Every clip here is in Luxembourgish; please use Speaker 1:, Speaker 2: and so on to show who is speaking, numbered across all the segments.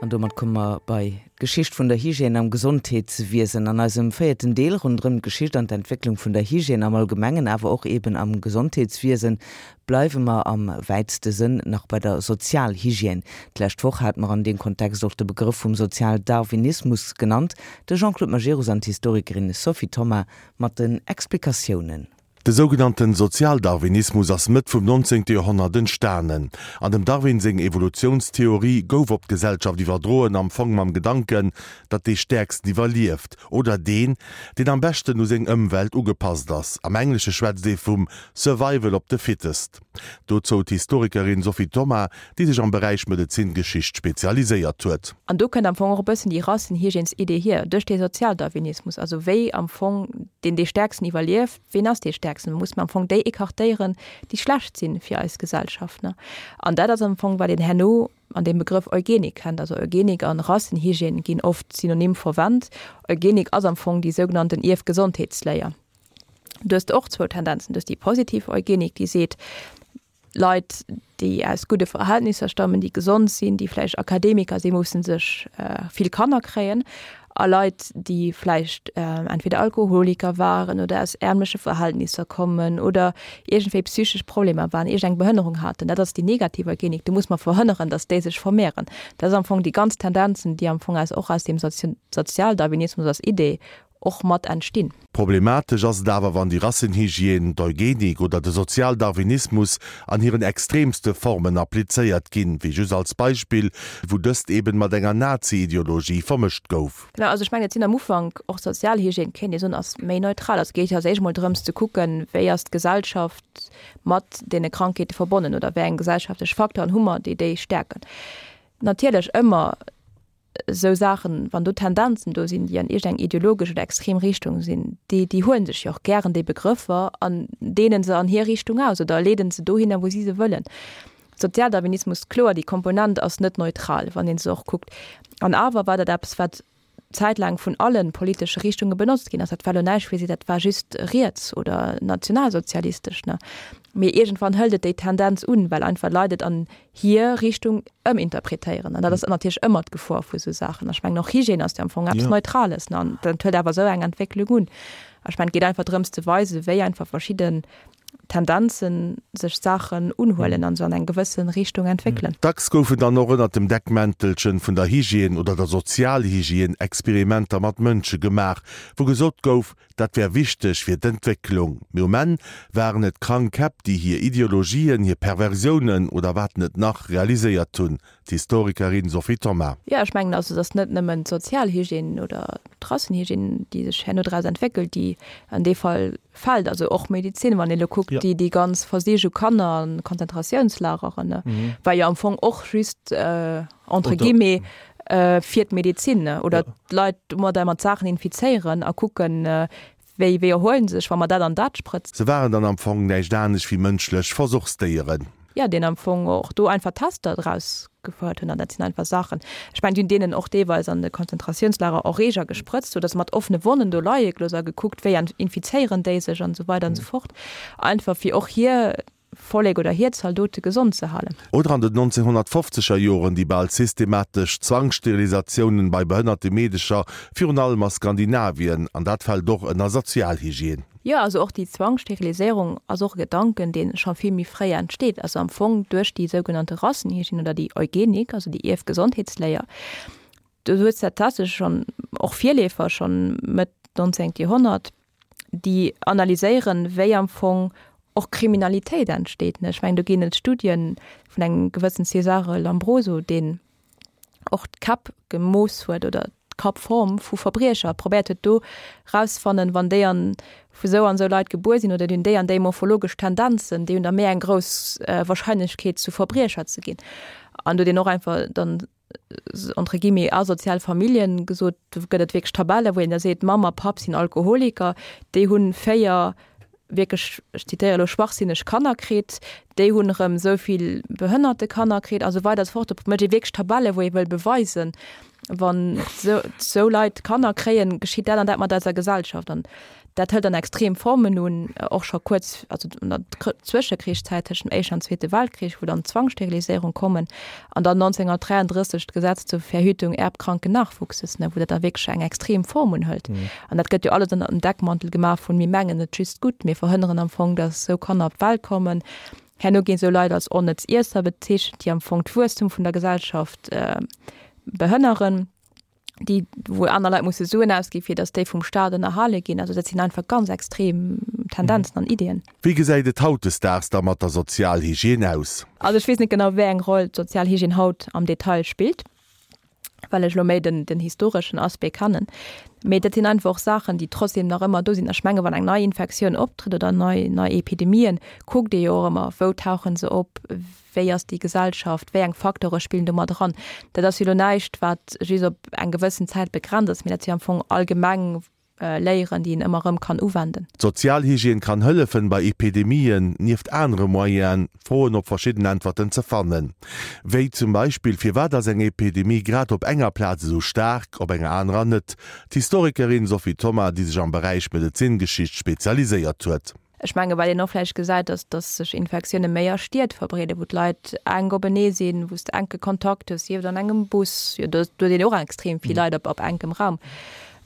Speaker 1: An domat komme mer bei d'Geschicht vun der Hygiène am Gesondheetswiesen. An eisem véierten Deel ronderëm d'Geschicht an d'Entwécklung vun der Hygiène am Allgemengen, awer och eben am Gesondheetswiesen, bleiwe mer am wäitste Sënn nach bei der Sozialhygiène. D'lescht Woch hate mer an deem Kontext och de Begrëff vum Sozialdarwinismus genannt. De Jean-Claude Majerus an d'Historikerin Sophie Thoma mat den Explikatiounen.
Speaker 2: De sougenannten Sozialdarwinismus ass Mëtt vum 19. Joerhonnert entstanen. An dem Darwin seng Evolutiounstheorie gouf op d'Gesellschaft iwwerdroen, am Fong mam Gedanken, datt dee Stäerksten iwwerlieft, oder deen, deen am beschten u seng Ëmwelt ugepasst ass. Am Englesche schwätzt ee vum Survival of the fittest. Dozou d'Historikerin Sophie Thoma, déi sech am Beräich Medezingeschicht spezialiséiert huet.
Speaker 3: An do kënnt am Fong och e bëssen déi Rassenhygiènes-Idee hier, duerch dee Sozialdarwinismus, also wéi am Fong deen dee Stäerksten iwwerlieft, Ween ass dee Stäerksten? Muss mer am Fong déi écartéieren, déi schlecht si fir eis Gesellschaft. Ne? An dat ass am Fong, wat een herno an deem Begrëff Eugenik kennt. Also Eugenik an Rassenhygiène ginn oft synonym verwennt. Eugenik ass am Fong déi sougenannten Ierfgesondheetsléier. Du hues och zwou Tendenzen. Du hues déi positiv Eugenik, déi seet, Leit, déi aus gudde Verhältnisser stammen, déi gesond sinn, déi vläicht Akademiker sinn, musse sech vill Kanner kréien. A Leit, déi vläicht entweder Alkoholiker waren oder aus ärmleche Verhältnisser kommen oder iergendwéi psychesch Problemer waren, iergend eng Behënnerung haten, dat ass déi negativ Eugenik. Do muss mer verhënneren, datt déi sech vermehren. Dat ass am Fong déi ganz Tendenzen, déi am Fong aus och aus deem Sozialdarwinismus als Idee och mat entstinn.
Speaker 2: Problematesch ass et awer, wann déi Rassenhygiène, d'Eugenik oder de Sozialdarwinismus an hiren extremste Formen applizéiert ginn, wéi just als Beispill, wou dëst eben mat enger Nazi-Ideologie vermëscht gouf.
Speaker 3: Genau, also ech mengen, et sinn am Ufank och Sozialhygiène, kéint ee soen, ass méi neutral. Also et geet jo als éischt emol drëms ze kucken, wéi ass d'Gesellschaft mat deene Krankheete verbonnen oder wéi eng gesellschaftlech Facteuren hu mer, déi déi stäerken. Natierlech ëmmer esou Saachen, wann do Tendenzen do sinn, déi an iergend eng ideologesch oder extrem Richtung sinn, déi, déi huele sech jo och gären déi Begrëffer an deenen se an hir Richtung aus oder leeden se dohinner, wou si se wëllen. Sozialdarwinismus, kloer, déi Komponent ass net neutral, wann ee se och kuckt. An awer war dat eppes, wat zäitlaang vun alle politesche Richtunge benotzt ginn ass. Dat war elo näischt fir si, dat war just riets oder nationalsozialistesch, ne? Mee iergendwann hëlt et déi Tendenz un, well einfach Leit et an hir Richtung ëminterpretéieren. An dat ass natierlech ëmmer d'Gefor vu sou Saachen. Ech mengen och Hygiène ass jo am Fong eppes Neutrales, ne? An dat huet awer esou eng Entwécklung un. Ech mengen, et geet einfach drëms ze weisen, wéi einfach verschidden Tendenzen sech Saachen unhuelen an se an eng gewësse Richtung entwéckelen.
Speaker 2: Dacks goufen dann och ënnert dem Deckmäntelchen vun der Hygiène oder der Sozialhygiène Experimenter mat Mënsche gemaach, wou gesot gouf, Dat wär wichteg fir d'Entwécklung. Mee um Enn waren et krank Käpp, déi hir Ideologien, hir Perversiounen oder wat net nach realiséiert hunn. D'Historikerin Sophie Thoma.
Speaker 3: Jo, ech mengen also, et ass net nëmmen d'Sozialhygiène oder d'Rassenhygiène, déi sech herno draus entwéckelt, déi an dee Fall fält. Also och Medezin, wann ee elo kuckt, déi déi ganz Versich u Kanner an Konzentratiounslageren, war jo am Fong och just entre guillemets fir d'Medezin oder d'Leit domadder mat Saachen infizéieren a kucken, wéi wéi erhuelen se sech, wa mer dat an dat sprëtzen.
Speaker 2: Se waren dann am Fong näischt anescht wéi mënschlech Versuchsdéieren.
Speaker 3: Jo, deen am Fong och do einfach Tester draus gefouert hunn. An dat sinn einfach Saachen, ech mengen, déi hunn deenen och deelweis an de Konzentratiounslager Erreeger gesprëtzt, sou datt se mat offene Wonnen do leie gelooss a gekuckt, wéi infizéieren déi sech an esou weider an esou fort, einfach fir och hir Vollek oder hir Zaldote gesond ze halen.
Speaker 2: Oder an den 1950er Joren déi bal systematesch Zwangssterilisatiounen bei behënnerte Meedecher, virun allem a Skandinavien, an dat fält och ënner Sozialhygiène.
Speaker 3: Jo, also och déi Zwangssteriliséierung ass och e Gedanken, dee scho vill méi fréi entsteet, also am Fong duerch déi sougenannte Rassenhygiène oder déi Eugenik, also déi Ierfgesondheetsléier. Do hues de tatsächlech schonn och Virleefer schonn Mëtt 19. Joerhonnert, déi analyséieren, wéi am Fong och Kriminalitéit entsteet. Ech mengen, do ginn et Studien vun engem gewëssen Cesare Lombroso, deen och d'Käpp gemooss huet oder d'Kappform vu Verbriecher, probéiert huet do rauszefannen, wann déi an vu sou an sou Leit gebuer sinn oder déi hunn déi an déi morphologesch Tendenzen, déi hunn da méi eng grouss Wahrscheinlechkeet zu Verbriecher ze ginn. An do huet een och einfach dann entre guillemets asozial Familljen gesot, do gëtt et wierklech Tabelle wou een da seet, Mamm a Papp sinn Alkoholiker, déi hunn 4 wierklech, ech zitéiere elo, schwachsinneg Kanner kritt, déi hunn erëm esou vill behënnerte Kanner kritt a sou weider a sou fort. Do mécht ee wierklech Tabelle wou ee wëll beweisen. Wann esou Leit Kanner kréien, geschitt dat an dat mat eiser Gesellschaft. An dat hëlt dann extrem Formen un, och scho kuerz, also an der Zwëschekrichszäit tëschent dem Éischten an Zweete Weltkrich, wou dann d'Zwangssteriliséierung kommen an dann 1933 d'Gesetz zur Verhütung erbkranken Nachwuchses, ne, wou dat da wierklech eng extrem Form unhëlt. An dat gëtt jo alles ënner dem Deckmantel gemaach vun, mir mengen et just gutt, mir verhënneren am Fong, datt esou Kanner op d'Welt kommen. Herno ginn esou Leit als onnëtz Iesser bezeechent, déi am Fong d'Wuesstum vun der Gesellschaft behënneren, déi wou aner Leit musse Suen ausgi fir datt déi vum Staat ënnerhale ginn. Also dat sinn einfach ganz extrem Tendenzen an Iddien.
Speaker 2: Wéi gesäit et hautdesdaags da mat der Sozialhygiène aus?
Speaker 3: Also ech weess net genau wéi eng Roll d'Sozialhygiène haut am Detail spillt. well ech elo méi den, den historeschen Aspect kennen. Mee dat sinn einfach och Saachen, déi trotzdem nach ëmmer do sinn. Ech menge wann eng nei Infektioun optrëtt oder nei, nei Epidemien, kuckt ee jo och ëmmer, wou tauche se op, wéi ass déi Gesellschaft, wéi eng Facteure spillen do mat eran. Dat ass jo elo näischt, wat just op eng gewëssen Zäit begrenzt ass, mee dat ass jo am Fong allgemeng Léieren, déi een ëmmer erëm kann uwenden.
Speaker 2: D'Sozialhygiène kann hëllefen, bei Epidemien, nieft anere Moyenen, Froen op verschidden Äntwerten ze fannen. Wéi zum Beispill, Firwat ass eng Epidemie grad op enger Plaz esou staark, op enger anerer net? D'Historikerin Sophie Thoma, déi sech am Beräich Medezingeschicht spezialiséiert huet.
Speaker 3: Ech menge wat een och vläicht gesäit, ass, datt sech Infektioune méi a Stied verbreeden, wou d'Leit enk openee sinn, wou s de enke Kontakt hues, sief et an engem Bus, jo do huet een och extrem vill Leit op enkem Raum.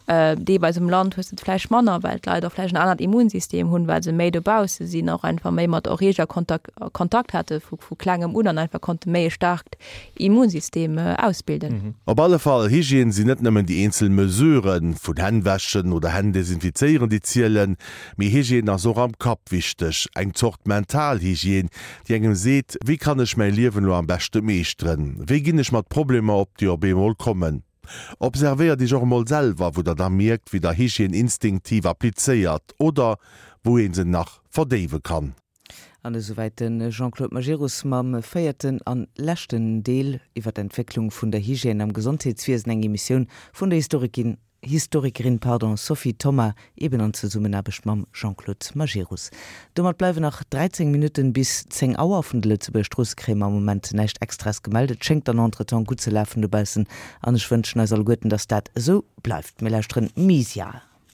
Speaker 3: Deelweis um Land hues de et vläicht manner, well d'Leit och vläicht en anert Immunsystem hunn, well se méi dobausse sinn, och einfach méi mat Erreeger Kontakt Kontakt hate vu vu klengem un an einfach konnte méi e staarkt Immunsystem ausbilden.
Speaker 2: Op alle Fall, Hygiène sinn net nëmmen déi eenzel Mesuren, vun Hänn wäschen oder Hänn desinfizéieren, déi zielen, Mee Hygiène ass och am Kapp wichteg, eng Zort mental Hygiène, déi engem seet, wéi kann ech mäi Liewen elo am beschte meeschteren, wéi ginn ech mat Problemer op, déi op eemol kommen. Observéiert iech och emol selwer, wou der da mierkt, wéi der Hygiène instinktiv applizéiert oder wou ee se nach verdéiwe kann.
Speaker 1: An esouwäit de Jean-Claude Majerus mam véierten an leschten Deel iwwer d'Entwécklung vun der Hygiène am Gesondheetswiesen, eng Emissioun vun der Historikin Historikerin pardon, Sophie Thoma, eben an Zesummenaarbecht mam Jean-Claude Majerus. Domat bleiwen nach 13 Minutten bis 10 Auer. Vun de Lëtzebuerger Stroosse kréie mer am Moment näischt Extraes gemellt. Et schéngt dann entretemps gutt ze lafen dobaussen an ech wënschen eis alleguerten, dass dat esou bleift. Mir lauschteren Misia.